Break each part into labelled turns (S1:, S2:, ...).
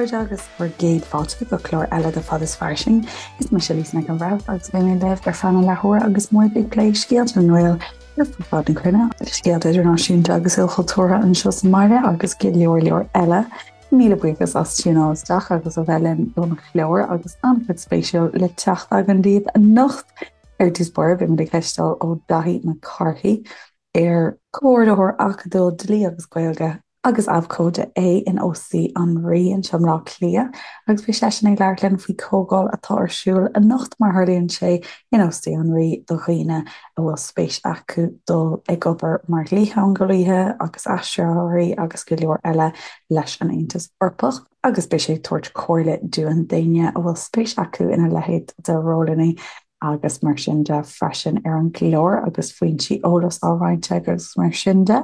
S1: chairde agus bhur gcéad fáilte go clár eile de Fad is Fairsing. Is mise Lisa Nic an Bhreithimh agus beidh mé libh ar feadh na leathuaire agus muid ag plé scéalta na nGael ar fud fad na cruinne, scéalta idirnáisiúnta agus ilchultúrtha anseo sa mbaile agus go leor leor eile. Míle buíochas as tiúnáil isteach agus a bheith linn don chlár agus an-chuid spéisiúil le teacht againn daoibh anocht. Ar dtús báire, beidh muid ag cloisteáil ó Daithí Mac Cárthaigh, ar Comhordaitheoir Acadúil Dlí agus Gaeilge agus Abhcóide é in Óstaí an Rí anseo i mBleá Cliath agus beidh seisean ag labhairt linn faoi chomhdháil atá ar siúl anocht mar tharlaíonn sé in Óstaí an Rí do dhaoine a bhfuil spéis acu dul ag obair mar dhlítheangeolaithe agus aistritheoirí agus go leor eile leis an Aontas Eorpach agus beidh sé ag tabhairt comhairle dúinn d'éinne a bhfuil spéis acu ina leithéid de rólanna agus mar sin de freisin ar an gclár agus foinsí eolais á roinnt aige agus mar sin de.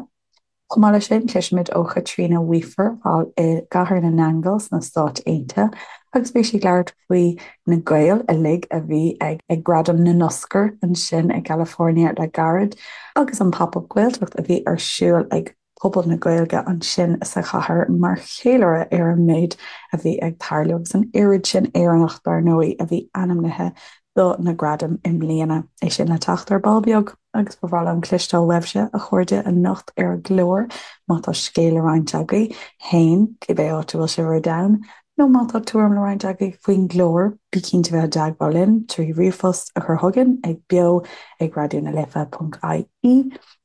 S1: Chomh maith leis sin, cloisfimid ó Chaitríona Weafer thall i gCathair na nAingeal sna Stáit Aontaithe agus beidh sí ag labhairt faoi na Gaeil uilig a bhí ag ag Gradaim na nOscar ansin i gCalifornia le gairid agus an Pop-Up Gaeltacht a bhí ar siúl ag pobal na Gaeilge ansin sa chathair mar cheiliúradh ar an méid a bhí ag tarlú agus an oiread sin Éireannach, dar ndóigh, a bhí ainmnithe do na gradaim i mbliana. É sin le teacht ar ball beag agus ba bhreá liom cloisteáil uaibhse, a chairde, anocht ar an gclár má tá scéal le roinnt agaibh féin, cibé áit a bhfuil sibh ar domhan, nó má tá tuairim le roinnt agaibh faoin gclár, bí cinnte bheith i dteagmháil linn trí ríomhphost a chur chugainn ag beo ag raidió na life ponc ie.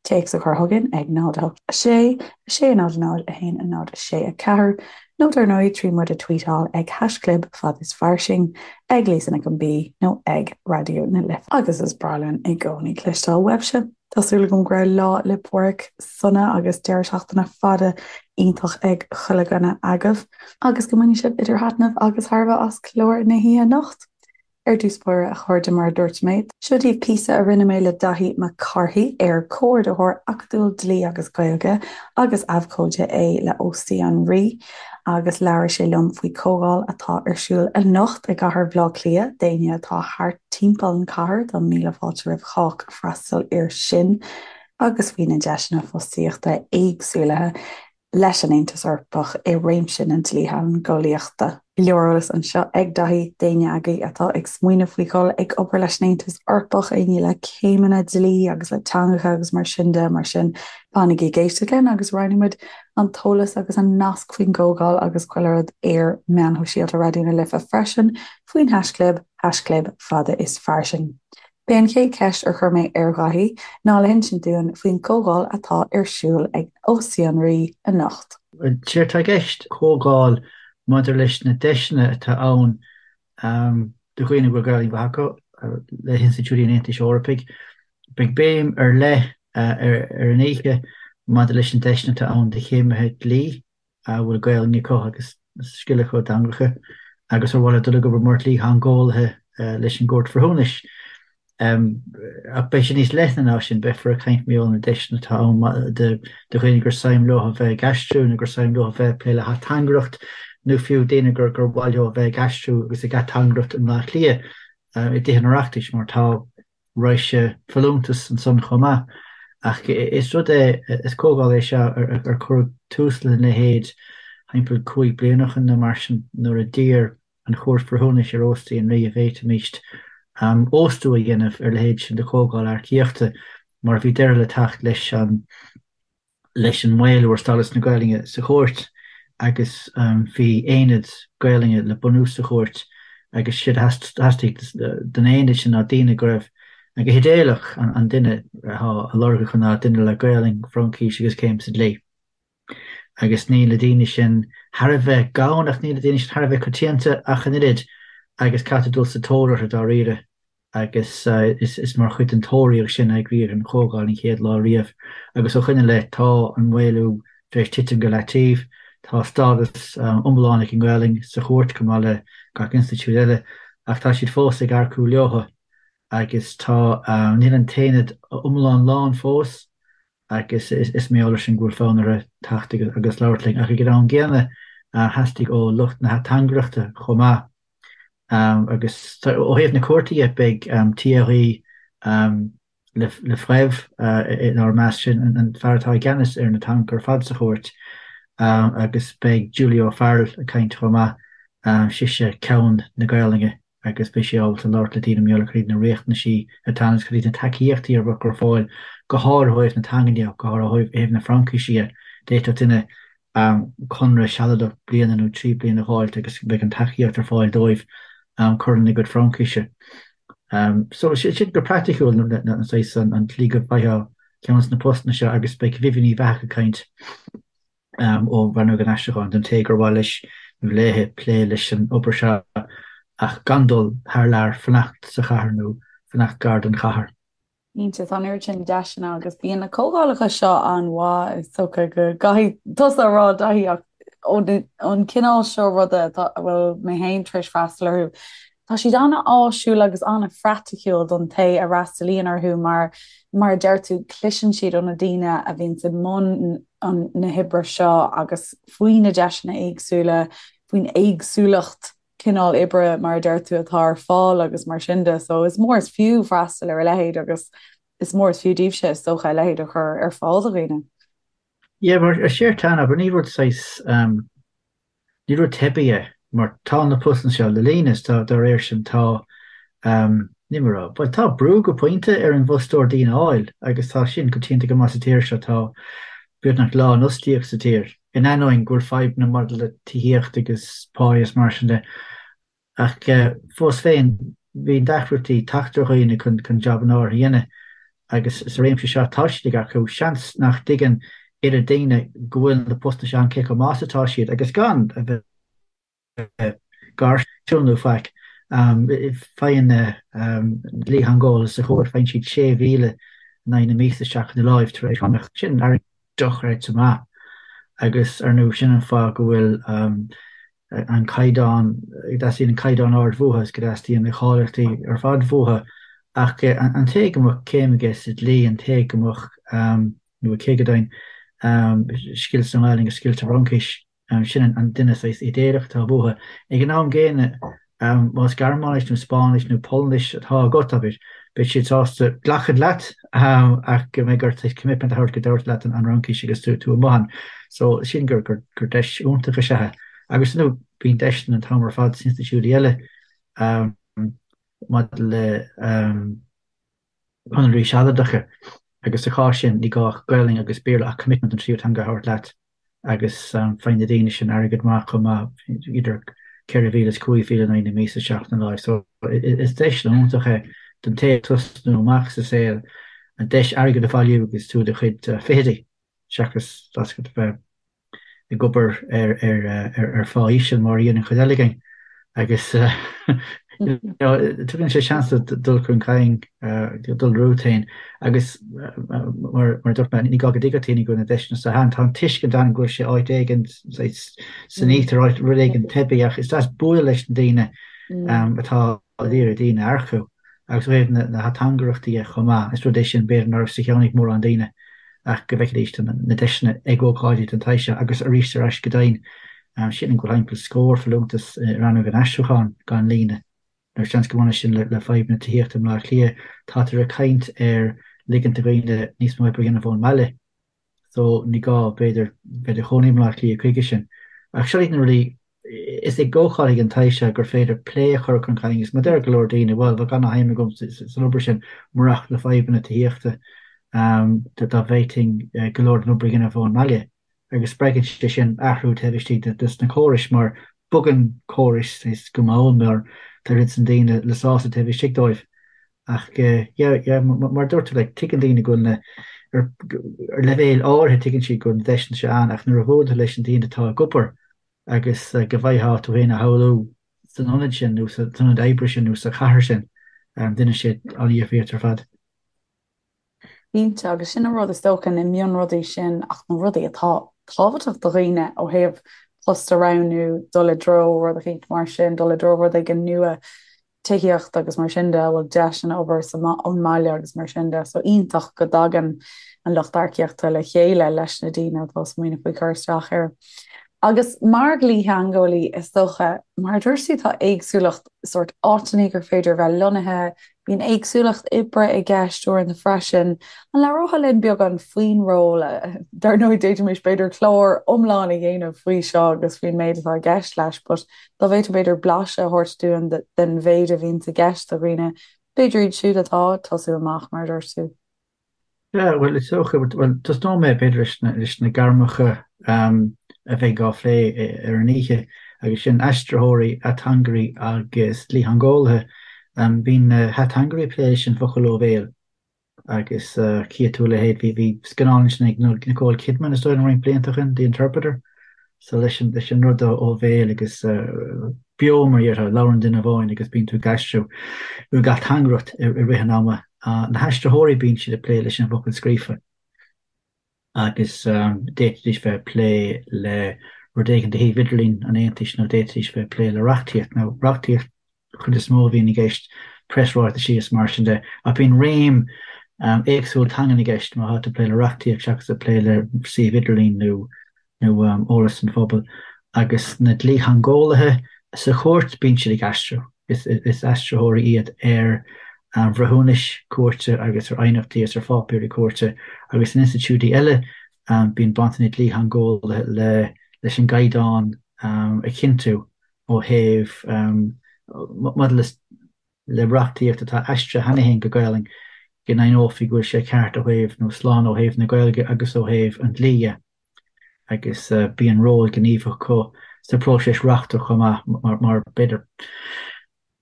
S1: Téacs a chur chugainn ag 0 8 6 6 0 0 1 0 6 4 nó dar ndóigh trí muid a tweetáil ag haischlib fad is fairsing, ag Lisa Nic an B nó ag Raidió na Life. Agus is breá linn i gcónaí cloisteáil uaibhse. Tá súil agam go raibh Lá 'le Pádraig sona agus deireadh seachtaine fada iontach ag chuile dhuine agaibh agus go mbainfidh sibh idir thaitneamh agus thairbhe as clár na hoíche anocht. Ar dtús báire, a chairde, mar a dúirt mé, seo daoibh píosa a rinne mé le Daithí Mac Cárthaigh, ar Comhordaitheoir Acadúil Dlí agus Gaeilge agus Abhcóide é le Óstaí an Rí, agus labhair sé liom faoi chomhdháil atá ar siúl anocht i gcathair Bhaile Átha Cliath d'éinne atá thart timpeall an chathair, tá míle fáilte roimh chách freastal air sin, agus faoi na deiseanna fostaíochta éagsúlaithe. leis an Aontas Eorpach i réimse na dlítheangeolaíochta. Go leor eolais anseo ag Daithí d'éinne agaibh atá ag smaoineamh faoi dhul ag obair leis an Aontas Eorpach, éinne le céimeanna dlí agus le teangacha agus mar sin de. Mar sin, fanaigí ag éisteacht linn agus roinnfidh muid an t-eolas agus an nasc faoin gcomhdháil agus chuile rud ar meáin shóisialta Raidió na Life freisin faoin haischlib, haischlib fada is fairsing. B'é an chéad cheist ar chuir mé ar Dhaithí ná le hinsint dúinn faoin gcomhdháil atá ar siúl ag Óstaí an Rí anocht.
S2: Séard atá i gceist, comhdháil maidir leis na deiseanna atá ann do dhaoine a bhfuil Gaelainn mhaith acu le hinstitiúidí an Aontais Eorpaigh. Beidh béim ar leith ar an oíche maidir leis na deiseanna atá ann do chéimithe dlí a bhfuil Gaelainn acu agus scil acu i dteangacha agus ar mhaith leo dul ag obair mar dhlítheangeolaithe leis an gCúirt Bhreithiúnais. Ach beidh sé níos leithne ná sin, beifear ag caint mar gheall ar na deiseanna atá ann do dhaoine gur suim leo a bheith ag aistriú nó gur suim leo a bheith ag plé le hateangaireacht nó fiú daoine gur gur mhaith leo a bheith ag aistriú agus ag ateangaireacht i mBleá Cliath i dTithe an Oireachtais mar tá raidhse folúntas ansan chomh maith. Ach is rud é, is comhdháil é seo ar cuireadh tús lena leithéid thimpeall 5 bliana ó shin nó mar sin nuair a d'iarr an Chúirt Bhreithiúnais ar Óstaí an Rí an bhféadfaimíst óstú a dhéanamh ar a leithéid sin de chomhdháil earcaíochta mar bhí deireadh le teacht leis an leis an maolú ar stádas na Gaelainne sa chúirt agus bhí aonad Gaelainne le bunú sa chúirt agus séard a theastaigh don aonad sin ná daoine go raibh, go hidéalach, an duine atá á lorg acu ná duine le Gaelainn, Fraincis agus céim sa dlí. Agus níl na daoine sin thar a bheith gann ach níl na daoine sin thar a bheith coitianta ach an oiread agus caithfidh tú dul sa tóir orthu dáiríre. agus is mar chuid den tóraíocht sin a eagraíodh an chomhdháil an chéad lá riamh. Agus ó shoin i leith tá an maolú tar éis titim go leataobh, tá stádas iomlán ag an nGaelainn sa chúirt chomh maith le gach institiúid eile, ach tá siad fós ag earcú leothu agus tá, níl an t-aonad iomlán lán fós agus is mar gheall air sin go bhfuil fonn orthu teacht agus labhairt linn. Ach ag an am gcéanna theastaigh ó lucht na hateangaireachta chomh maith Agus ó thaobh na cúirte dhe, beidh Thierry Lefebvre inár measc, sin an fear atá i gceannas ar na teangacha ar fad sa chúirt. Agus beidh Julie O'Farrell ag caint chomh maith, sise ceann na Gaolainne agus beidh sí ábalta labhairt le daoine mar gheall ar cad iad na riachtanaisí atá ann agus cad iad na tacaíochtaí a bheadh ar fáil, go háirithe ó thaobh na teangan de, go háirithe ó thaobh na Fraincise de. D'fhéadfadh duine conradh sealadach bliana nó 3 bliana a dh'fháilt agus beidh an tacaíocht ar fáil dóibh cur lena gcuid Fraincise. So sin go praiticiúil na saghas an tslí go bhfaighfeá ceann de na postanna seo agus beidh Vivian Uíbh Eachach ag caint ó Rannóg an Aistriúcháin don té gur mhaith leis nó léi plé leis an obair seo ach gan dul thar lear, fanacht sa chathair nó fanacht gar don chathair.
S1: Cinnte, tá an oiread sin deiseanna agus bíonn na comhdhálacha seo an-mhaith, is dócha go gcaithfidh tusa a rá Daithí ach ón cineál seo ruda atá, a bhfuil mé féin tar éis freastal orthu, tá siad an-áisiúil agus an-phraiticiúil don té a fhreastalaíonn orthu mar, mar a deir tú, cloiseann siad ó na daoine a bhíonns i mbun na hoibre seo agus faoi na deiseanna éagsúla, faoin éagsúlacht cineál oibre, mar a deir tú, atá ar fáil agus mar sin de. So is mór is fiú freastal ar a leithéid agus is mór is fiú daoibhse, is dócha, a leithéid a chur ar fáil do dhaoine.
S2: Yeah, mar is éard atá ann, abair, ní rud saghas, ní rud teibí é, mar tá na postanna seo le líonadh is tá, dá réir sin, tá, ní mar a, bhuel, tá brú go pointe ar an bhfostóir daoine a fháil agus tá sin coitianta go maith sa tír seo, tá beagnach lánfhostaíocht sa tír. in ainneoin go bhfuil fadhbanna maidir le tithíocht agus pá is mar sin de. Ach fós féin, bíonn deacrachtaí teacht ar dhaoine chun jabanna áirithe a dhéanamh agus sa réimse seo tá siad ag earcú. Seans nach dtuigeann oiread daoine go bhfuil na postanna seo ann cé chomh maith is atá siad agus gan a bheith gairsiúil nó faic. Faigheann na dlítheangeolaithe sa chúirt, faigheann siad 6,000 in aghaidh na míosa isteach ina láimh tar éis cánach. Sin airgead dochreidte maith agus, ar ndóigh, sin an fáth go bhfuil an caighdeán, go dteastaíonn an caighdeán ard uathu is go dteastaíonn na cáilíochtaí ar fad uathu. Ach an té go mbeadh céim aige sa dlí, an té go mbeadh, nó aici go deimhin, scil sa nGaelainn agus scil sa Fhraincis, Sin an duine saghas idéalach atá uathu. Ag an am gcéanna, más Gearmáinis nó Spáinnis nó Polainnis atá agat, abair, beidh siad sásta glacadh leat ach go mbeidh ort saghas commitment a thabhairt go dtabharfaidh leat an Fhraincis agus tú amuigh ann. So, sin gur deis iontach is ea é. Agus ar ndóigh, bíonn deiseanna an t-am ar fad sna institiúidí eile maidir le conarthaí sealadacha agus sa chás sin ní gá ach Gaelainn agus Béarla ach commitment an tríú teanga a thabhairt leat agus faigheann na daoine sin airgead maith chomh maith, idir 4,000 is 5,000 in aghaidh na míosa isteach ina láimh. So is deis iontach é don té ag tosnú amach sa saol an deis airgead a bhailiú agus tú i do chuid fichidí seachas a bheith ag obair ar phá íseal mar a dhéanann an chuid eile againn agus tugann sé seans duit dul chun cinn, dul romhat féin agus mar a dúirt mé, ní gá go dtuigfeadh daoine go bhfuil na deiseanna seo ann. Tá an tuiscint ann go bhfuil sé áit éigin san íochtar, áit rud éigin teibí ach is deas bualadh leis na daoine atá ag iarraidh daoine a earcú. Agus ó thaobh na hateangaireachta dhe chomh maith, is rud é sin b'fhéidir nach raibh sa cheann ag mórán daoine ach go bhfeicfidís na deiseanna ag ócáidí den tsaghas seo agus arís ar ais go deimhin, sílim go bhfuil timpeall scór folúntas i rannóg an aistriúcháin gan líonadh. Nó seans go mbaineann sin le fadhb na tithíochta i mBleá Cliath. Táthar ag caint ar ligint do dhaoine níos mó oibre a dhéanamh ón mbaile. So ní gá, b'fhéidir, bheith i do chónaí i mBleá Cliath chuige sin. Ach seo iad na rudaí, is ag ócáidí den tsaghas seo gur féidir plé a chur chun cinn agus mar deir go leor daoine, bhuel, bheadh ana-shuim agam san obair sin murach na fadhbanna tithíochta, dá bhféadfainn go leor den obair a dhéanamh ón mbaile. Agus spreagann sé sin athrú taobh istigh de sna córais mar bogann córais go mall mar tá oiread san daoine le sásamh taobh istigh dóibh. Ach yeah, yeah, mar a dúirt tú, like, tuigeann daoine go bhfuil na, ar, ar leibhéal áirithe tuigeann siad go bhfuil na deiseanna seo ann ach nuair a bhuaileann tú leis na daoine atá ag obair agus go bhfaighfeá tú féin a shamhlú san ionad sin nó san ionad oibre sin nó sa chathair sin, déanann sé an-difríocht ar fad.
S1: Cinnte, agus sin an rud is dócha, na mionrudaí sin ach na rudaí atá tábhachtach do dhaoine ó thaobh post a roghnú, dul i dtreo rud eicínt mar sin, dul i dtreo rud éigin nua, tithíocht agus mar sin de, a bhfuil deiseanna obair ón mbaile agus mar sin de. So iontach go dtagann an lucht earcaíochta le chéile leis na daoine atá ag smaoineamh faoi cur isteach air. Agus mar dhlítheangeolaí, is dócha, mar a dúirt tú, tá éagsúlacht sórt áiteanna gur féidir a bheith lonnaithe, Bíonn éagsúlacht oibre i gceist uaireanta freisin. An labhrófá linn beagán faoin ról? Dar ndóigh, d'fhéadfaimis b'fhéidir clár iomlán a dhéanamh faoi seo agus faoin méid atá i gceist leis, but dá bhféadfá b'fhéidir blaiseadh a thabhairt dúinn den mhéid a bhíonns i gceist do dhaoine, b'fhéidir iad siúd atá ag tosú amach, mar a dúirt tú.
S2: Yeah, bhuel, is dócha, bhuel, tosnóidh mé b'fhéidir leis na, leis na gairmeacha a bheidh á phlé ar an oíche, agus sin aistritheoirí, ateangairí agus dlítheangeolaithe. Bíonn na hateangairí ag plé leis an bhfocal ó bhéal agus cífidh tú a leithéid, bhí, bhí scannán ansin ag Nicole Kidman is dóigh liom roinnt blianta ó shin, The Interpreter. So leis an, leis an rud ó bhéal agus beo mar a déarfá, labhrann duine amháin agus bíonn tú ag aistriú nó ag ateangaireacht i rith an ama. Na haistritheoirí bíonn siad ag plé leis an bhfocal scríofa agus d'fhéadfaidís bheith ag plé le rud éigin de shuíomh idirlín an Aontais nó d'fhéadfaidís bheith ag plé le reachtaíocht nó reachtaíocht chuid is mó a bhíonn i gceist, preasráitisí is mar sin de, ach bíonn réim éagsúil teangan i gceist má tá tú ag plé le reachtaíocht seachas ag plé le suíomh idirlín nó nó eolas don phobal. Agus na dlítheangeolaithe sa chúirt, bíonn siad ag aistriú. Is is aistritheoirí iad ar bhreithiúnais cúirte agus ar aighneachtaí agus ar pháipéirí cúirte agus in institiúidí eile bíonn baint ag na dlítheangeolaithe le leis an gcaighdeán a chinntiú ó thaobh maidir le le reachtaíocht atá aistrithe cheana féin go Gaelainn, go ndeimhneofaí go bhfuil sé ceart ó thaobh, nó slán ó thaobh na Gaeilge agus ó thaobh an dlí dhe. Agus bíonn ról gníomhach acu sa phróiseas reachtach chomh maith, mar mar b'fhéidir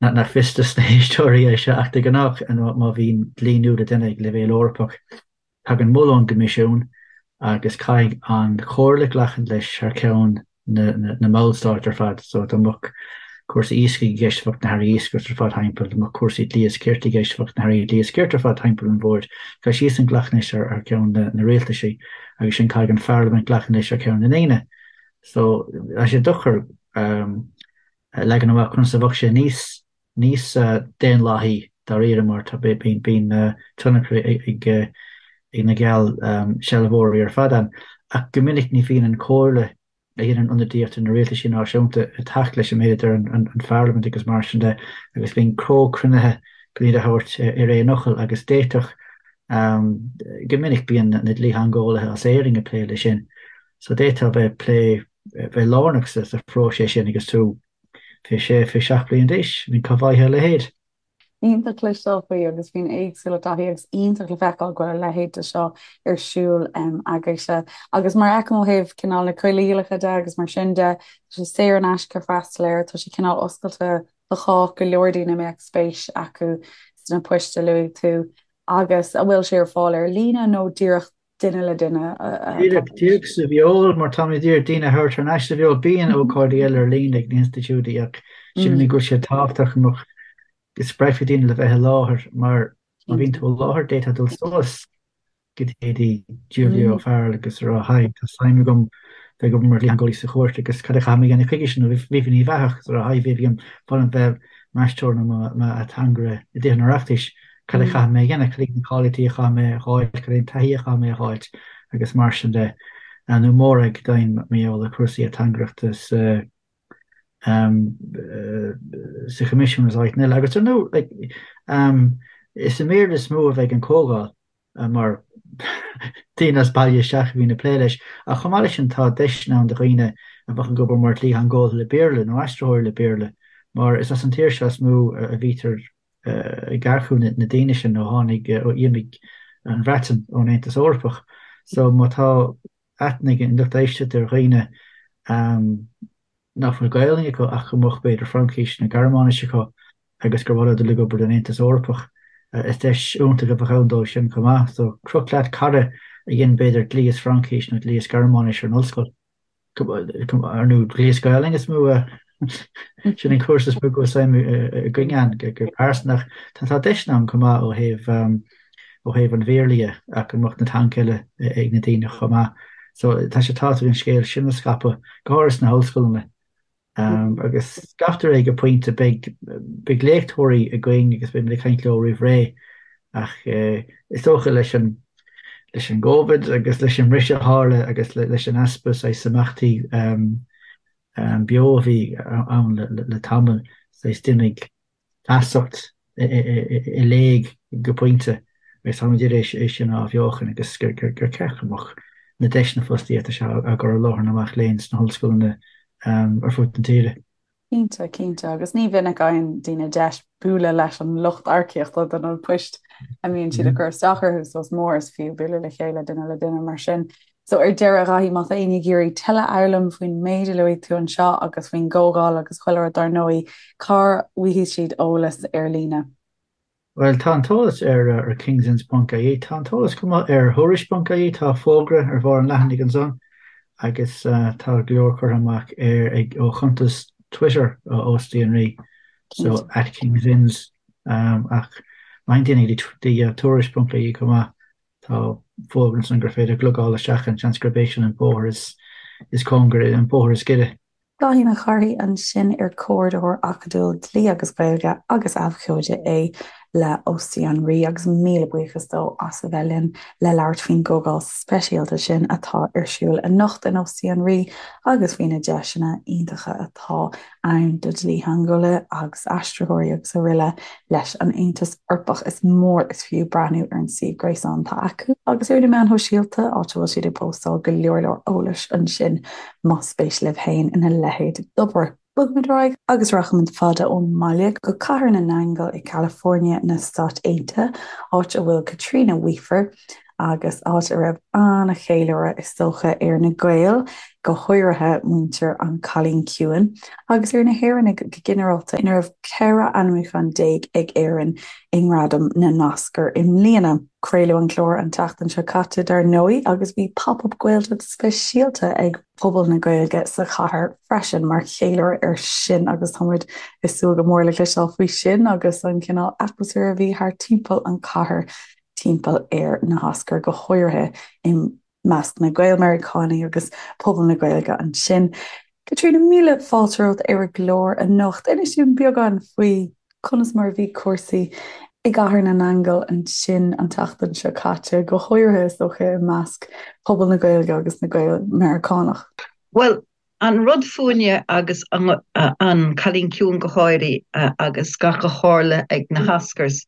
S2: nach fios dos na héisteoirí é seo ach de ghnáth má bhíonn dlí nua le déanamh ag leibhéal Eorpach, Tagann moladh ón gCoimisiún agus caithfidh an Chomhairle glacadh leis thar ceann na mballstát ar fad. So dá mbeadh cúrsaí iascaigh i gceist bheadh na hairí iascaireachta ar fad timpeall, dá mbeadh cúrsaí dlí is cirt i gceist bheadh na hairí dlí is cirt ar fad timpeall an bhoird. Caithfidh siadsan glacadh leis thar ceann na rialtaisí agus ansin caithfidh an Pharlaimint glacadh leis thar ceann na ndaoine. So tá sé deacair a leagan amach conas a bheadh sé níos níos daonlathaí dáiríre mar tá bíonn tionchar ag na geallsealbhóirí ar fad ann. Ach go minic ní bhíonn an Chomhairle a dhéanann ionadaíocht ar na rialtaisí náisiúnta ag teacht leis an méid a deir an Pharlaimint agus mar sin de agus bíonn comhchruinnithe chun iad a thabhairt ar aon fhocal agus d'fhéadfadh go minic bíonn na dlítheangeolaithe as Éirinn ag plé leis sin so d'fhéadfá bheith ag plé bheith lárnach sa phróiseas sin agus tú 26, 27 bliain d'aois, I mean cá bhfaighfeá a leithéid?
S1: Iontach cloisteáil faoi agus faoin éagsúlacht taithí agus iontach le feiceáil go bhfuil a leithéid de seo ar siúl agaibhse. Agus mar a fheicim ó thaobh cineál na coinníollacha de agus mar sin de, tá sé saor in aisce freastal air, tá sé cineál oscailte do chách, go leor daoine a mbeadh spéis acu sna poist a luaigh tú. Agus an bhfuil sé ar fáil ar líne nó díreach duine le duine
S2: atá Díreach, díreach sa bhfeoil, mar táimid ag iarraidh daoine a thabhairt thar n-ais sa bhfeoil. Bíonn ócáidí eile ar líne ag na hinstitiúidí ach sílim go bhfuil sé tábhachtach go mbeadh, go spreagfaí daoine le bheith i láthair mar má bhíonn tú i láthair d'fhéadfá dul suas go dtí Julia O'Farrell agus a rá Hi, tá suim agam bheith ag obair mar dhlítheangeolaí sa chúirt agus cad a chaithfidh mé a dhéanamh chuige sin nó Vivian Uíbh Eachach agus a rá Hi Vivian, ba mhaith liom bheith m'aistritheoir nó m'ateangaire i dTithe an Oireachtais. Cad a chaithfidh mé a dhéanamh, cad iad na cáilíochtaí a chaithfidh mé a fháil, cad é an taithí a chaithfidh mé a fháilt agus mar sin de. Nó Morag Doyne mar gheall ar chúrsaí ateangaireachta sa sa Choimisiún is áiteanna eile. Agus ar ndóigh, like, is i mBéarla is mó a bheidh an comhdháil mar daoine as baile isteach a bhíonn ag plé leis. Ach chomh maith leis sin tá deiseanna ann do dhaoine a bheadh ag obair mar dhlítheangeolaithe le Béarla nó aistritheoirí le Béarla mar is as an tír seo is mó a bhítear ag earcú na daoine sin ó tháinig, ó d'imigh an Bhreatain ón Aontas Eorpach. So má tá aithne ag an lucht éisteachta ar dhaoine nach bhfuil Gaelainn acu ach go mbeadh b'fhéidir Fraincis nó Gearmáinis acu agus gur mhaith leo dul ag obair don Aontas Eorpach, is deis iontach a bheadh ann dóibh sin chomh maith. So croch leat cara a dhein b'fhéidir dlí is Fraincis nó dlí is Gearmáinis ar an ollscoil. Ar ndóigh dlí is Gaelainn is mó a sin an cúrsa is mó go bhfuil suim againn ann go pearsanta ach tá deiseanna ann chomh maith ó thaobh ó thaobh an Bhéarla dhe ach go mbeadh na teangacha eile ag na daoine chomh maith. So tá sé tábhachtach an scéal sin a scaipeadh, go háirithe sna hollscoileanna. Agus scaiptear é go pointe, beidh beidh léachtóirí againn agus beidh muid ag caint leo roimh ré ach is dócha leis an leis an gCovid agus leis an mbriseadh a tharla agus leis an easpa saghas imeachtaí beo a bhí ann le tamall, saghas d'imigh feasacht. I léig go pointe agus táimid ag iarraidh é sin a athbheochan agus gur ceart go mbeadh na deiseanna fostaíochta seo á gcur i láthair na mac léinn sna hollscoileanna ar fud na tíre.
S1: Cinnte, cinnte, agus ní mhinic a fhaigheann daoine deis bualadh leis an lucht earcaíochta do na poist a mbíonn siad ag cur isteach orthu, so is mór is fiú bualadh le chéile duine le duine mar sin. So ar deireadh, a Dhaithí, má tá éinne ag iarraidh tuilleadh a fhoghlaim faoin méid a luaigh tú anseo agus faoin gcomhdháil agus chuile rud dar ndóigh, cá bhfaighidh siad eolas ar líne?
S2: Bhuel, tá an t-eolas ar kingsinns ponc ie, tá an t-eolas chomh maith ar thuairisc ponc ie, tá fógra ar bharr an leathanaigh ansan agus tá go leor curtha amach ar ag ó chuntas Twitter ó Óstaí an Rí, so at kingsinns ach má théann daoine go dtí tuairisc ponc ie chomh maith, Tá fógra ansan gur féidir glogáil isteach ann, seans gurb é sin an bóthar is cóngaraí, an bóthar is giorra.
S1: Dáithí Mac Cárthaigh ansin ar Comhordaitheoir Acadúil Dlí agus Gaeilge agus Abhcóide é le Óstaí an Rí agus míle buíochas dó as a bheith linn le labhairt faoin gcomhdháil speisialta sin atá ar siúl anocht in Óstaí an Rí agus faoi na deiseanna iontacha atá ann do dhlítheangeolaithe agus aistritheoirí agus araile leis an Aontas Eorpach. Is mór is fiú breathnú ar an suíomh gréasáin atá acu agus ar na meáin shóisialta, áit a bhfuil siad ag póstáil go leor leor eolais ansin más spéis libh féin ina leithéid d'obair. Bogfaimid ar aghaidh agus rachaimid fada ón mbaile go Cathair na nAingeal i California na Stát Aontaithe, áit a bhfuil Caitríona Weafer, agus áit a raibh an-cheiliúradh is dócha ar na Gaeil, go háirithe muintir An Cailín Ciúin, agus ar na hÉireannaigh go ginearálta, ina raibh 14 ainmniúchán ag Éirinn i nGradaim na nOscar i mbliana. Craoladh an clár an tseachtain seo caite dar ndóigh agus bhí Pop Up Gaeltacht speisialta ag pobal na Gaeilge sa chathair freisin mar cheiliúradh air sin agus tá muid ag súil go mór le cloisteáil faoi sin agus an cineál atmaisféir a bhí thart timpeall an chathair timpeall ar na hOscair, go háirithe i measc na Gael-Mheiriceánaigh agus pobal na Gaeilge ansin. Caitríona, míle fáilte romhat ar an gclár anocht. Inis dúinn beagán faoi conas mar a bhí cúrsaí i gCathair na nAingeal ansin an tseachtain seo caite, go háirithe is dócha i measc pobal na Gaeilge agus na Gael-Mheiriceánach.
S3: Bhuel, an rud fúinne agus an Cailín Ciúin go háirithe agus gach a tharla ag na hOscars,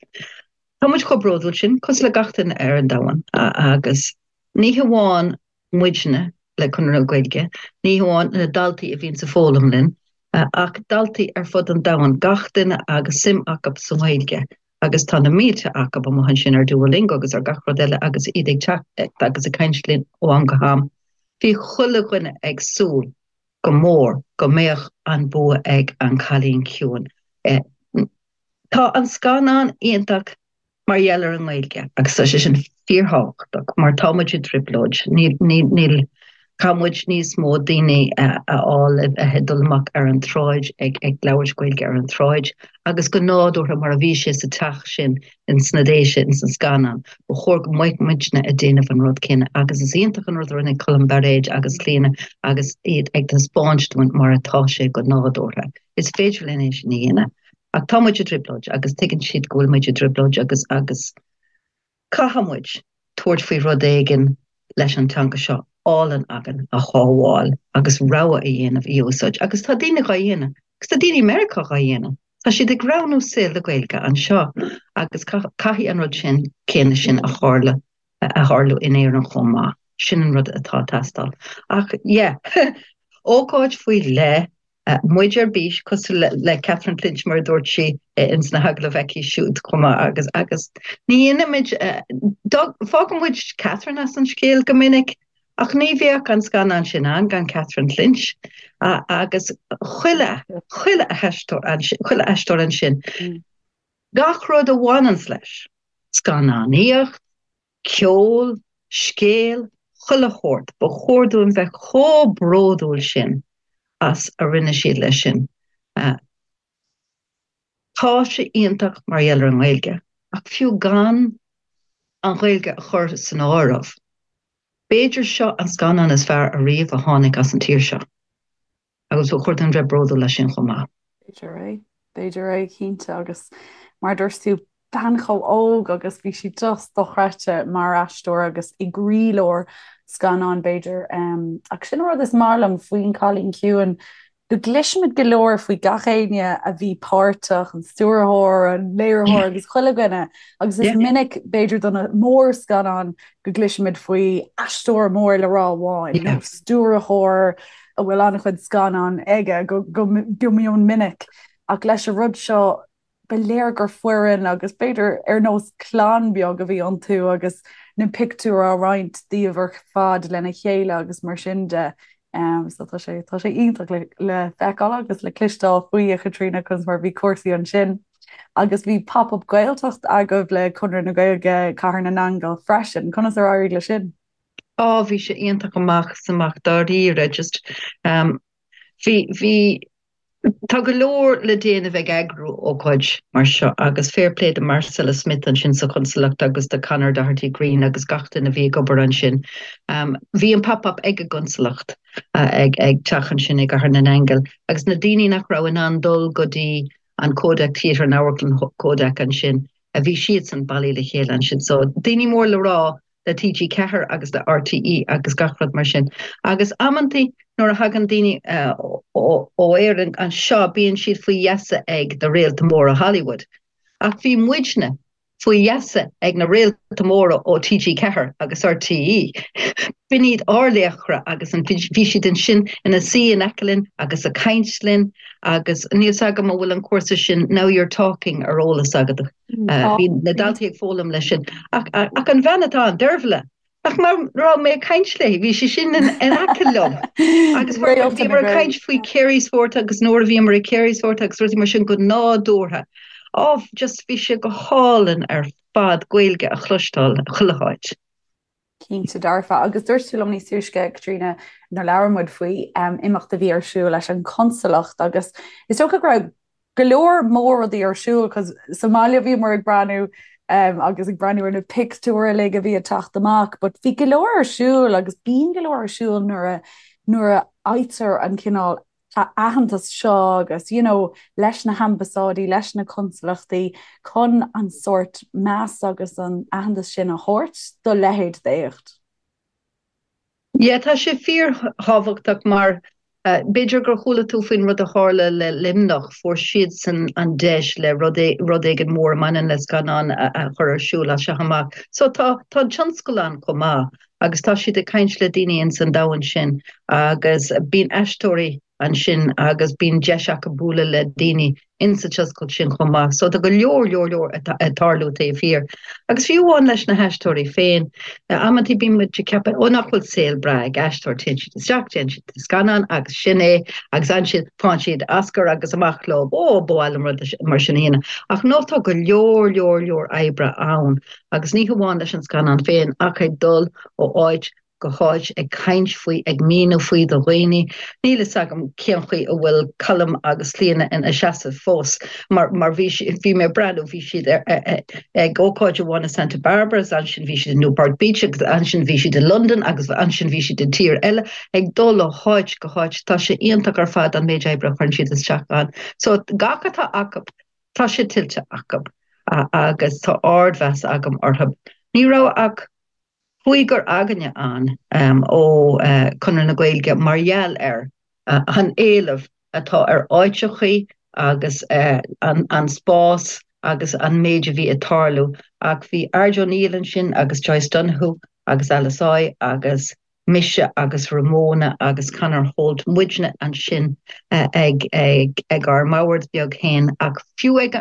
S3: Tá muid chomh bródúil sin, cosúil le gach duine ar an domhan, agus ní hamháin muidne le Conradh na Gaeilge, ní hamháin na daltaí a bhíonns ag foghlaim linn, ach daltaí ar fud an domhain, gach duine agus suim acu sa nGaeilge, agus tá na mílte acu amuigh ansin ar Duolingo agus ar gach rud eile agus iad ag teacht agus ag caint linn ó am go ham. Bhí chuile dhuine ag súil go mór go mbeadh an bua ag An Cailín Ciúin. Tá an scannán iontach mar gheall ar an nGaeilge agus tá sé sin fíorthábhachtach mar tá muid i dtrioblóid. Níl, níl, níl, caithfidh muid níos mó daoine a fháil le bheith ag dul amach ar an tsráid ag, ag labhairt Gaeilge ar an tsráid agus go nádúrtha mar a bhí sé sa teach sin ins na Déise ins an scannán. Ba chóir go mbeadh muidne ag déanamh an rud céanna agus is iontach an rud a rinne Colm Bairéad agus Clíona agus iad ag taispeáint dúinn mar atá sé go nádúrtha. Is féidir linn é sin a dhéanamh. Ach tá muid i dtrioblóid agus tuigeann siad go bhfuil muid i dtrioblóid agus agus caithfidh muid tabhairt faoi rud éigin leis an teanga seo álainn againn a shábháil agus rogha a dhéanamh í a úsáid. Agus tá daoine dhá dhéanamh. Agus tá daoine i Meiriceá dhá dhéanamh. Tá siad ag roghnú saol le Gaeilge anseo agus caithfidh an rud sin céanna sin a tharla a tharlú in Éirinn chomh maith. Sin an rud atá ag teastáil. Ach yeah, ócáid faoi leith Muid ar bís, cosúil le Catherine Clinch mar a dúirt sí ins na hagallaimh aici siúd chomh maith agus agus ní dhéanaimid, fágann muid Catherine as an scéal go minic ach ní bheadh an scannán sin ann gan Catherine Clinch agus chuile, chuile aisteoir ansin, chuile aisteoir ansin. Gach rud a bhaineanns leis, scannánaíocht, ceol, scéal, chuile shórt, ba chóir dúinn bheith chomh bródúil sin as a rinne siad leis sin. Tá sé iontach mar gheall ar an nGaeilge, ach fiú gan an Ghaeilge a chur san áireamh, b'fhéidir seo an scannán is fearr ariamh a tháinig as an tír seo. Agus ba chóir dúinn bheith bródúil as sin chomh maith.
S1: B'fhéidir é. B'fhéidir é, cinnte. Agus mar a dúirt tú, bean chomh óg agus bhí sí just dochreidte mar aisteoir agus i gcroílár scannáin, b'fhéidir. Ach sin an rud is maith liom faoin Cailín Ciúin. go gcloisimid go leor faoi gach éinne a bhí páirteach, an stiúrthóir, an léiritheoir agus chuile dhuine, agus is minic, b'fhéidir do na mórscannáin, go gcloisimid faoi aisteoir mór le rá amháin nó stiúrthóir a bhfuil an-chuid scannán aige go mion minic. Ach leis an rud seo, ba léir gur foireann agus b'fhéidir ar nós clann beag a bhí iontu agus na pictiúir á roinnt daoibh ar fad lena chéile agus mar sin de. So tá sé tá sé iontach le le feiceáil agus le cloisteáil faoi a Chaitríona conas mar bhí cúrsaí ansin. Agus bhí Pop Up Gaeltacht agaibh le Conradh na Gaeilge Cathair na nAingeal freisin. Conas ar éirigh leis sin?
S3: Á bhí sé iontach amach is amach dáiríre just um, bhí bhí Tá go leor le déanamh ag eagrú ócáid mar seo agus fair play do Marcella Smith ansin sa Chonsalacht agus do Conor Doherty Green agus gach duine a bhí ag obair ansin. Bhí an Pop Up ag an gConsalacht ag teach ansin i gCathair na nAingeal agus na daoine nach raibh in ann dul go dtí an Kodak Theatre, an Amharclann Kodak ansin, bhí siadsan bailithe le chéile ansin. So daoine mór le rá le TG4 agus le RTÉ agus gach rud mar sin. Agus amantaí nuair a thagann daoine ó Éirinn anseo bíonn siad faoi gheasa ag na réalta móra Hollywood. Ach bhí muidne faoi gheasa ag na réalta móra ó TG4 agus RTÉ. B'in iad ár laochra agus bhí siad ansin ina suí in aice linn agus ag caint linn agus níl 's agam an bhfuil an cúrsa sin Now You're Talking ar eolas agat. Bhí na daltaí ag foghlaim leis sin. Ach an bhean atá ann, Dervla, nach mar raibh mé ag caint léi, bhí sí sin in aice liom. Agus bhíomar ag caint faoi Carysfort agus nuair a bhíomar i Carysfort agus rudaí mar sin go nádúrtha. Á, just bhí sé go hálainn ar fad Gaeilge a chloisteáil chuile háit.
S1: Cinnte dearfa. Agus dúirt tú liom níos túisce, Caitríona, nuair labhair muid faoi imeacht a bhí ar siúl leis an Chonsalacht agus is dócha go raibh go leor mór rudaí ar siúl cos sa mbaile bhíomar ag breathnú agus ag breathnú ar na pictiúir uilig a bhí ag teacht amach but bhí go leor ar siúl agus bíonn go leor ar siúl nuair a nuair a fhaightear an cineál aitheantas seo agus you know leis na hambasáidí, leis na consalachtaí chun an sórt meas agus an aitheantas sin a thabhairt do leithéid d'éacht.
S3: Yeah, tá sé fíorthábhachtach mar b'fhéidir gur chuala tú faoin rud a tharla le Luimneach, fuair siadsan an deis le rud rud éigin mór a mbaineann le scannán a chur ar siúl as seo amach. So tá tá an tionscal ann chomh maith. agus tá siad ag caint le daoine ins an domhan sin agus bíonn aisteoirí ansin agus bíonn deis acu bualadh le daoine ins an tionscal sin chomh maith. So tá go leor, leor, leor ag tarlú taobh thiar. Agus fiú amháin leis na haisteoirí féin, amantaí bíonn muid ag ceapadh, ó nach bhfuil saol breá ag aisteoir, téann siad isteach, déanann siad scannán agus sin é agus ansin faigheann siad Oscar agus amach leo, ó ba mhaith liom rud mar sin a dhéanamh. Ach no, tá go leor, leor, leor oibre ann. Agus ní hamháin leis an scannán féin ach ag dul ó áit go háit ag caint faoi, ag míniú faoi do dhaoine. Níl fhios agam cén chaoi a bhfuil Colm agus Clíona ina seasamh fós mar mar bhí bhí mé ag breathnú, bhí siad ag ócáid amháin i Santa Barbara agus ansin bhí siad i Newport Beach agus ansin bhí siad i Londain agus ansin bhí siad i dtír eile, ag dul ó háit go háit. Tá sé iontach ar fad an méid oibre a chuireann siad isteach ann. So gach atá acu. Tá sé tuillte acu agus tá ardmheas agam orthu. Ní raibh ach cúigear againne ann ó Chonradh na Gaeilge mar gheall ar an éileamh atá ar áiteachaí agus an spás agus an méid a bhí ag tarlú ach bhí Ard O'Neill ansin agus Joyce Donoghue agus Alice Oi agus mise agus Ramona agus Conor Holt, muidne ansin ag ag ár mbord beag féin ach fiú ag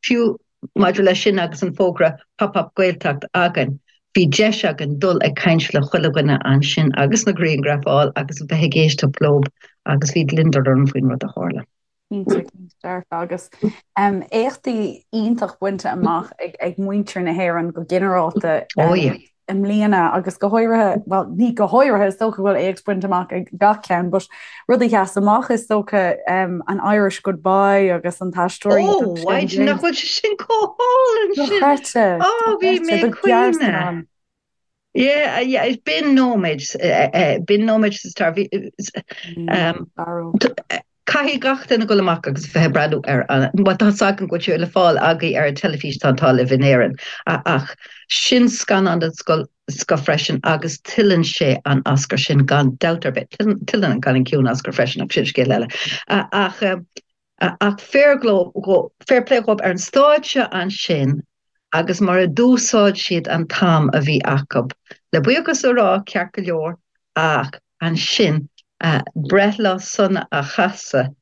S3: fiú maidir leis sin agus an fógra Pop Up Gaeltacht againn, bhí deis againn dul ag caint le chuile dhuine ansin agus na grianghraif a fháil agus a bheith ag éisteacht leo agus bhí gliondar orm faoin rud a tharla.
S1: Cinnte, cinnte dearfa. Agus éachtaí iontach bainte amach ag muintir na hÉireann go ginearálta i mbliana agus go háirithe, bhuel ní go háirithe, is dócha go bhfuil éacht bainte amach ag gach ceann, but rud a sheas amach is dócha an Irish Goodbye agus an t-aisteoir
S3: iontach sin. Ó, nach bhfuil sé sin chomh hálainn sin!
S1: Dochreidte!
S3: Ó, bhí mé ag caoineadh. Yeah, yeah, b'in nóiméad, b'in nóiméad sa stair. Bhí, caithfidh gach duine dul amach agus bheith ag breathnú ar an, bhuel tá 's agam go bhfuil sé le fáil agaibh ar an teilifís tá an t-ádh libh in Éirinn, ach sin scannán den scoth. scoth freisin agus tuilleann sé an Oscar sin gan dabht ar bith. Tuilleann an Cailín Ciúin Oscar freisin ach sin scéal eile. Ach ach fair fair play dhóibh ar an stáitse ansin agus mar a d'úsáid siad an t-am a bhí acu. Le buíochas a rá ceart go leor ach ansin breithlá sona a chasadh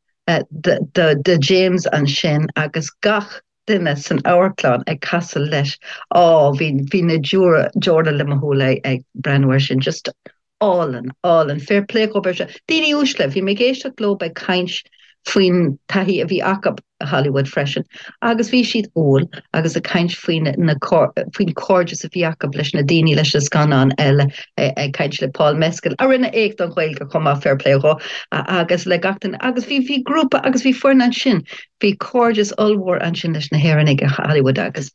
S3: do James ansin agus gach duine san amharclann ag casadh leis. Á, bhí, bhí na deora le mo shúile ag breathnú air sin. Just álainn, álainn. Fair play dhóibh ar seo. Daoine uaisle, bhí mé ag éisteacht leo ag caint faoin taithí a bhí acu i Hollywood freisin agus bhí siad umhal agus ag caint faoin na faoin cairdeas a bhí acu leis na daoine leis na scannáin eile ag caint le Paul Mescal a rinne éacht don Ghaeilge chomh maith fair play dhó agus le gach duine agus bhí bhí grúpa agus bhí foireann ansin Bhí cairdeas ollmhór ansin leis na hÉireannaigh i Hollywood agus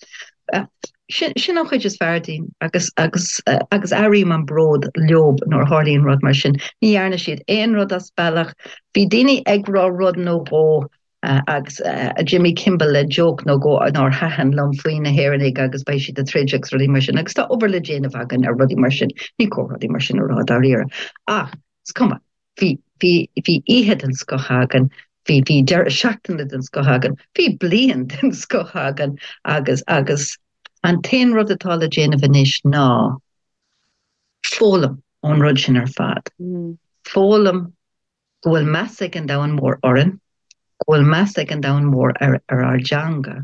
S3: sin sin an chuid is fearr dínn agus agus agus airím an bród leob nuair a tharlaíonn rud mar sin. Ní dhearna siad aon rud as bealach. Bhí daoine ag rá rud nó dhó agus Jimmy Kimmel le joke nó dhó nár thaitin liom faoi na hÉireannaigh agus beidh siad ag troid agus rudaí mar sin agus tá obair le déanamh againn ar rudaí mar sin. Ní cóir rudaí mar sin a rá dáiríre. Ach is cuma. Bhí, bhí, bhí oíche den scoth againn, bhí, bhí deireadh seachtaine den scoth againn, bhí bliain den scoth againn agus, agus an t-aon rud atá le déanamh anois ná foghlaim ón rud sin ar fad. Foghlaim go bhfuil meas ag an domhan mór orainn, go bhfuil meas ag an domhan mór ar, ar ár dteanga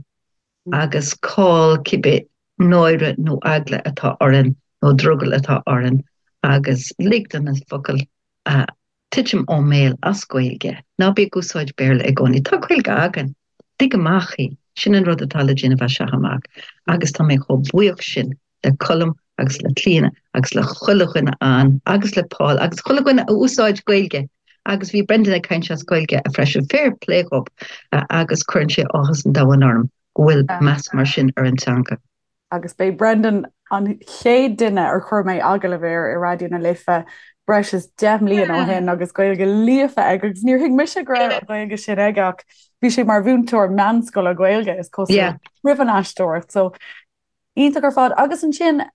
S3: agus cá'il cibé náire nó eagla atá orainn nó drogall atá orainn agus lig do na focail titim ón mbéal as Gaeilge. Ná bí ag úsáid Béarla i gcónaí. Tá Gaeilge againn. Lig amach í. Sin an rud atá le déanamh as seo amach agus tá mé chomh buíoch sin le Colm agus le Clíona agus le chuile dhuine ann agus le Paul agus chuile dhuine a úsáid Gaeilge agus bhí Brendan ag caint as Gaeilge freisin. Fair play dhób agus cuireann sé áthas an domhain orm go bhfuil meas mar sin ar an teanga.
S1: Agus b'é Brendan an chéad duine ar chuir mé agallamh air i Raidió na Life breis is 10 mbliana ó shin agus Gaeilge líofa aige agus níor thuig mise go raibh an Ghaeilge sin aige ach bhí sé mar mhúinteoir meánscoile Gaeilge is cosúil roimh an aisteoireacht. So Iontach ar fad. Agus ansin,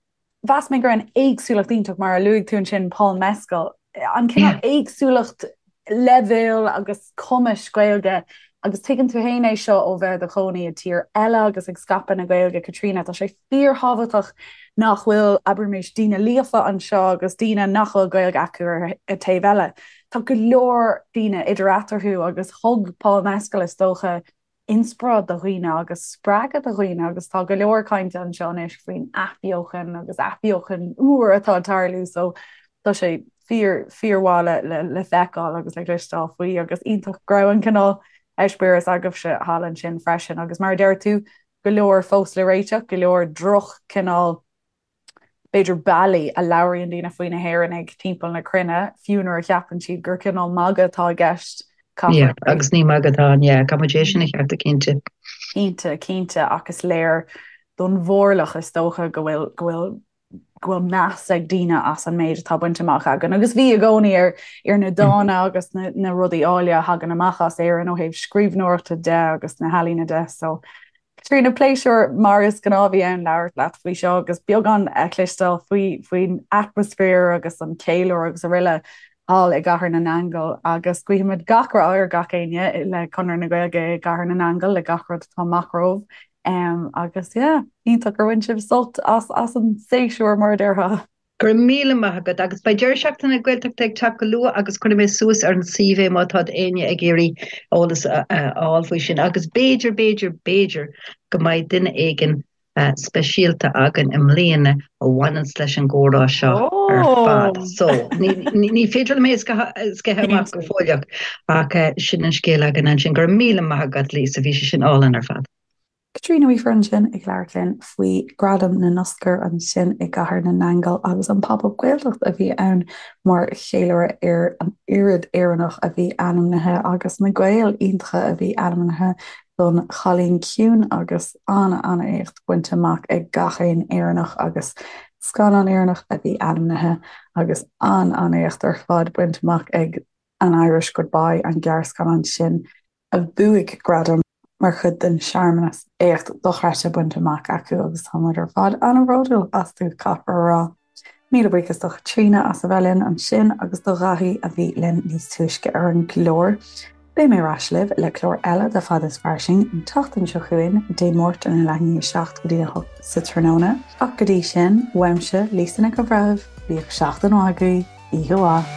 S1: mheas mé go raibh an éagsúlacht iontach, mar a luaigh tú ansin, Paul Mescal, an cineál éagsúlacht leibhéil agus cumais Gaeilge agus tuigeann tú féin é seo ó bheith i do chónaí i dtír eile agus ag scaipeadh na Gaeilge, Caitríona, tá sé fíorthábhachtach nach bhfuil, abraimis, daoine líofa anseo agus daoine nach bhfuil Gaeilge acu ar an taobh eile. Tá go leor daoine idir eatarthu agus thug Paul Mescal, is dócha, inspioráid do dhaoine agus spreagadh do dhaoine agus tá go leor cainte anseo anois faoin athbheochan agus athbheochan úr atá ag tarlú so tá sé fíor fíormhaith le le le feiceáil agus le cloisteáil faoi agus iontach go raibh an cineál eispéireas agaibhse thall ansin freisin agus mar a deir tú go leor fós le réiteach, go leor droch cineál b'fhéidir bealaí a labhraíonn daoine faoi na hÉireannaigh timpeall na cruinne, fiú nuair a cheapann siad gur cineál magadh atá i gceist.
S3: Yeah, agus ní magadh atá ann, yeah, caithfidh muid é sin a cheartú cinnte.
S1: Cinnte, cinnte, ach is léir don mhórlach is dócha go bhfuil, go bhfuil, go bhfuil meas ag daoine as an méid atá bainte amach againn agus bhí i gcónaí ar, ar na dána agus na, na rudaí áille a thagann amach as Éirinn ó thaobh scríbhneoireachta de agus na healaíona de, so Caitríona, pléisiúr mar is gnáth a bhí ann labhairt leat faoi seo agus beagán a chloisteáil faoi faoin atmaisféar agus an ceiliúradh agus araile thall i gCathair na nAingeal agus guímid gach rath ar gach éinne le Conradh na Gaeilge i gCathair na nAingeal le gach rud atá amach romhaibh um, agus yeah, iontach gur bhain sibh sult as as an séasúr mar a déarfá.
S3: Go raibh míle maith agat agus beidh deireadh seachtaine Gaeltachta ag teacht go luath agus cuirfidh mé suas ar an suíomh é má tá éinne ag iarraidh eolas a fháil faoi sin agus b'fhéidir, b'fhéidir, b'fhéidir go mbeidh duine éigin speisialta againn i mbliana a bhaineanns leis an gcomhrá seo ar fad. So, ní féidir liom é a sceitheadh amach go fóilleach ach sin an scéal againn ansin. Go raibh míle maith agat Lisa, bhí sé sin álainn ar fad.
S1: Caitríona Weaver ansin ag labhairt linn faoi Ghradaim na nOscar ansin i gCathair na nAingeal agus an Pop Up Gaeltacht a bhí ann mar cheiliúradh ar an oiread Éireannach a bhí ainmnithe agus na Gaeil iontacha a bhí ainmnithe don Chailín Ciúin agus an-an-éacht bainte amach ag gach aon Éireannach agus scannán Éireannach a bhí ainmnithe agus an-an-éacht ar fad bainte amach ag An Irish Goodbye, an gearrscannán sin. a bhuaigh gradam mar chuid den searmanas. Éacht dochreidte bainte amach acu agus tá muid ar fad an-bhródúil astu, caithfear a rá. Míle buíochas do Chaitríona as a bheith linn ansin agus do Dhaithí a bhí linn níos túisce ar an gclár. Beidh mé ar ais libh le clár eile de Fada is Fairsing an tseachtain seo chugainn, Dé Máirt óna leath i ndiaidh 7 go dtí a 8 sa tráthnóna. Ach go dtí sin, uaimse, Lisa Nic an Bhreithimh, bíodh seachtain mhaith agaibh, oíche mhaith.